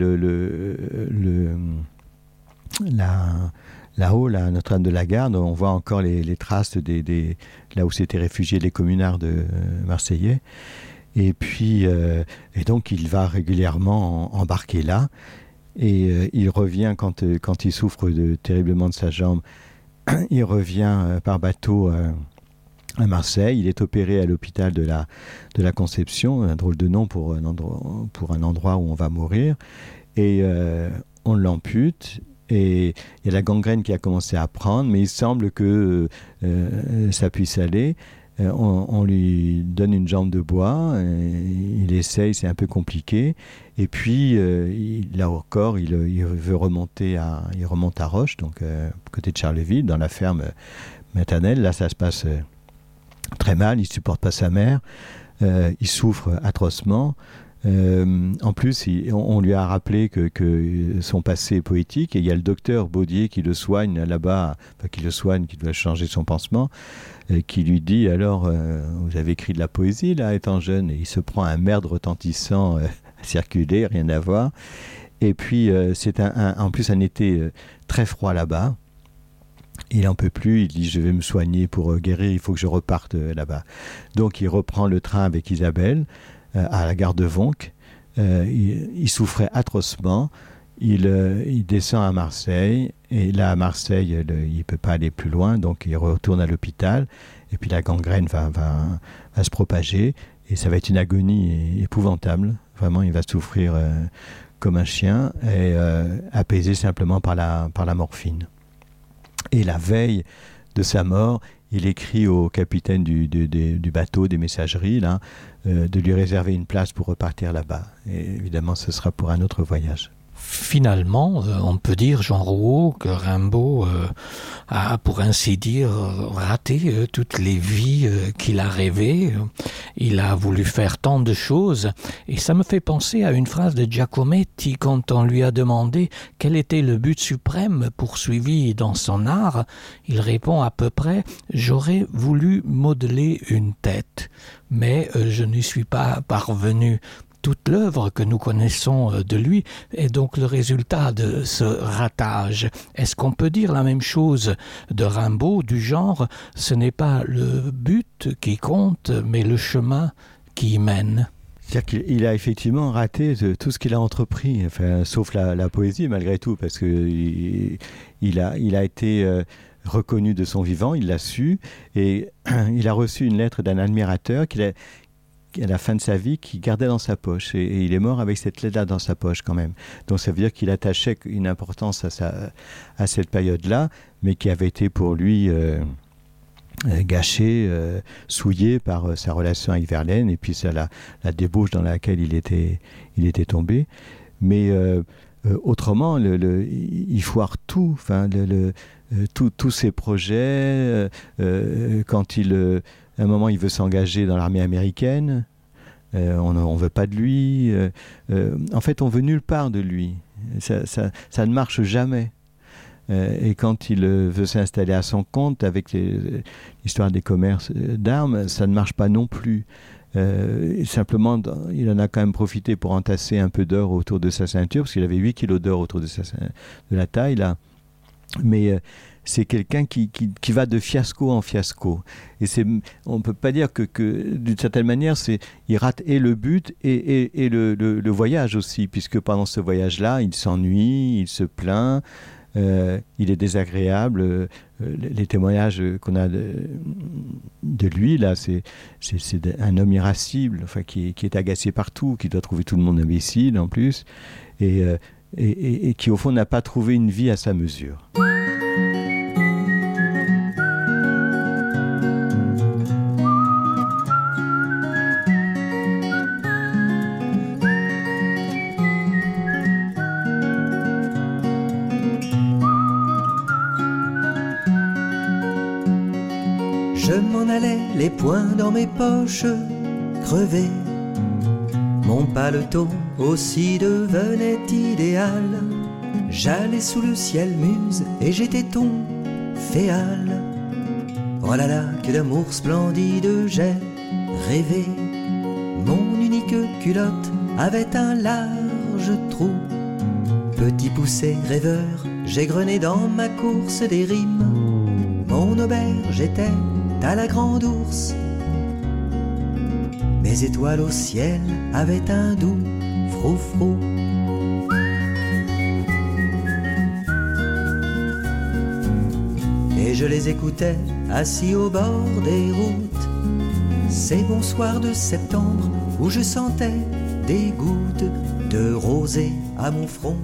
là-haut, là, Notre-Dame de la Garde, on voit encore les traces là où s'étaient réfugiés les communards marseillais. Et puis, et donc il va régulièrement embarquer là, et il revient quand il souffre terriblement de sa jambe. Il revient par bateau à Marseille. Il est opéré à l'hôpital de la Conception, un drôle de nom pour un endroit où on va mourir, et on l'ampute. Et il y a la gangrène qui a commencé à prendre, mais il semble que ça puisse aller. On lui donne une jambe de bois, il essaye, c'est un peu compliqué, et puis là encore il veut remonter il remonte à Roche, donc côté de Charleville, dans la ferme maternelle. Là ça se passe très mal, il supporte pas sa mère, il souffre atrocement. En plus, on lui a rappelé que son passé est poétique, et il y a le docteur Baudier qui le soigne là-bas, qui doit changer son pansement, qui lui dit, alors, vous avez écrit de la poésie là, étant jeune, et il se prend un merde retentissant à circuler, rien à voir. Et puis, c'est en plus un été très froid là-bas. Il n'en peut plus, il dit, je vais me soigner pour guérir, il faut que je reparte là-bas. Donc, il reprend le train avec Isabelle, à la gare de Vonc. Il souffrait atrocement. Il descend à Marseille, et là à Marseille il ne peut pas aller plus loin, donc il retourne à l'hôpital, et puis la gangrène va se propager, et ça va être une agonie épouvantable. Vraiment, il va souffrir comme un chien, et apaisé simplement par la morphine. Et la veille de sa mort, il écrit au capitaine du bateau, des messageries, là, de lui réserver une place pour repartir là-bas. Et évidemment, ce sera pour un autre voyage. Finalement, on peut dire, Jean Rouault, que Rimbaud a, pour ainsi dire, raté toutes les vies qu'il a rêvées. Il a voulu faire tant de choses, et ça me fait penser à une phrase de Giacometti quand on lui a demandé quel était le but suprême poursuivi dans son art. Il répond à peu près « J'aurais voulu modeler une tête, mais je n'y suis pas parvenu ». Toute l'œuvre que nous connaissons de lui est donc le résultat de ce ratage. Est-ce qu'on peut dire la même chose de Rimbaud, du genre ce n'est pas le but qui compte, mais le chemin qui y mène? C'est-à-dire qu'il a effectivement raté tout ce qu'il a entrepris, enfin, sauf la poésie malgré tout, parce qu'il a été reconnu de son vivant, il l'a su, et il a reçu une lettre d'un admirateur à la fin de sa vie, qui gardait dans sa poche, et il est mort avec cette lettre-là dans sa poche quand même. Donc ça veut dire qu'il attachait une importance à cette période-là, mais qui avait été pour lui gâché, souillé par sa relation avec Verlaine, et puis ça, la débauche dans laquelle il était tombé. Mais autrement, il foire tout, enfin, tous ses projets, quand à un moment, il veut s'engager dans l'armée américaine. On ne veut pas de lui. En fait, on veut nulle part de lui. Ça ne marche jamais. Et quand il veut s'installer à son compte avec l'histoire des commerces d'armes, ça ne marche pas non plus. Simplement, il en a quand même profité pour entasser un peu d'or autour de sa ceinture, parce qu'il avait 8 kilos d'or autour de la taille, là. Mais c'est quelqu'un qui va de fiasco en fiasco. Et on ne peut pas dire que d'une certaine manière, il rate et le but et le voyage aussi, puisque pendant ce voyage-là, il s'ennuie, il se plaint, il est désagréable. Les témoignages qu'on a de lui, là, c'est un homme irascible, enfin, qui est agacé partout, qui doit trouver tout le monde imbécile en plus, et qui au fond n'a pas trouvé une vie à sa mesure. Je m'en allais, les poings dans mes poches, crevés. Mon paletot aussi devenait idéal. J'allais sous le ciel muse et j'étais ton féal. Oh là là, que d'amour splendide j'ai rêvé. Mon unique culotte avait un large trou. Petit poussé rêveur, j'ai grené dans ma course des rimes. Mon auberge était à la grande ours. Mes étoiles au ciel avaient un doux froufrou. Et je les écoutais assis au bord des routes. Ces bons soirs de septembre où je sentais des gouttes de rosée à mon front.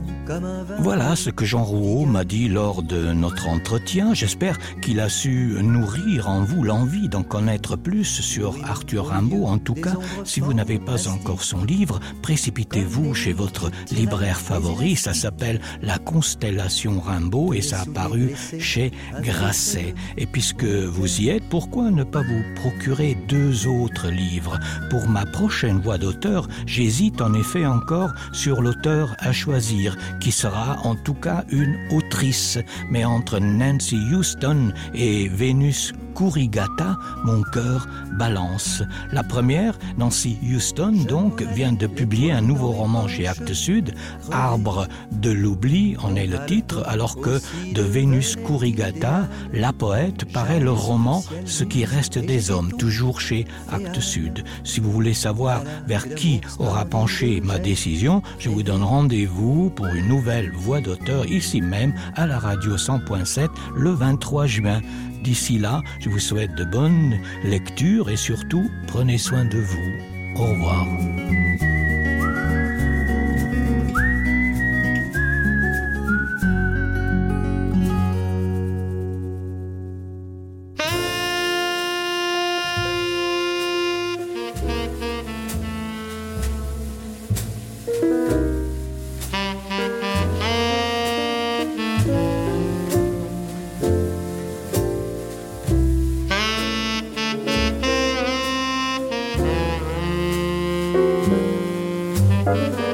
Voilà ce que Jean Rouault m'a dit lors de notre entretien. J'espère qu'il a su nourrir en vous l'envie d'en connaître plus sur Arthur Rimbaud. En tout cas, si vous n'avez pas encore son livre, précipitez-vous chez votre libraire favori. Ça s'appelle La Constellation Rimbaud et ça a paru chez Grasset. Et puisque vous y êtes, pourquoi ne pas vous procurer 2 autres livres? Pour ma prochaine voix d'auteur, j'hésite en effet encore sur l'auteur à choisir, qui sera en tout cas une autrice. Mais entre Nancy Houston et Vénus Kurigata, mon cœur balance. La première, Nancy Houston, donc, vient de publier un nouveau roman chez Actes Sud, Arbre de l'oubli, en est le titre, alors que de Vénus Kurigata, la poète, paraît le roman Ce qui reste des hommes, toujours chez Actes Sud. Si vous voulez savoir vers qui aura penché ma décision, je vous donne rendez-vous pour une nouvelle voix d'auteur ici même à la radio 100.7 le 23 juin. D'ici là, je vous souhaite de bonnes lectures et surtout, prenez soin de vous. Au revoir. Thank you.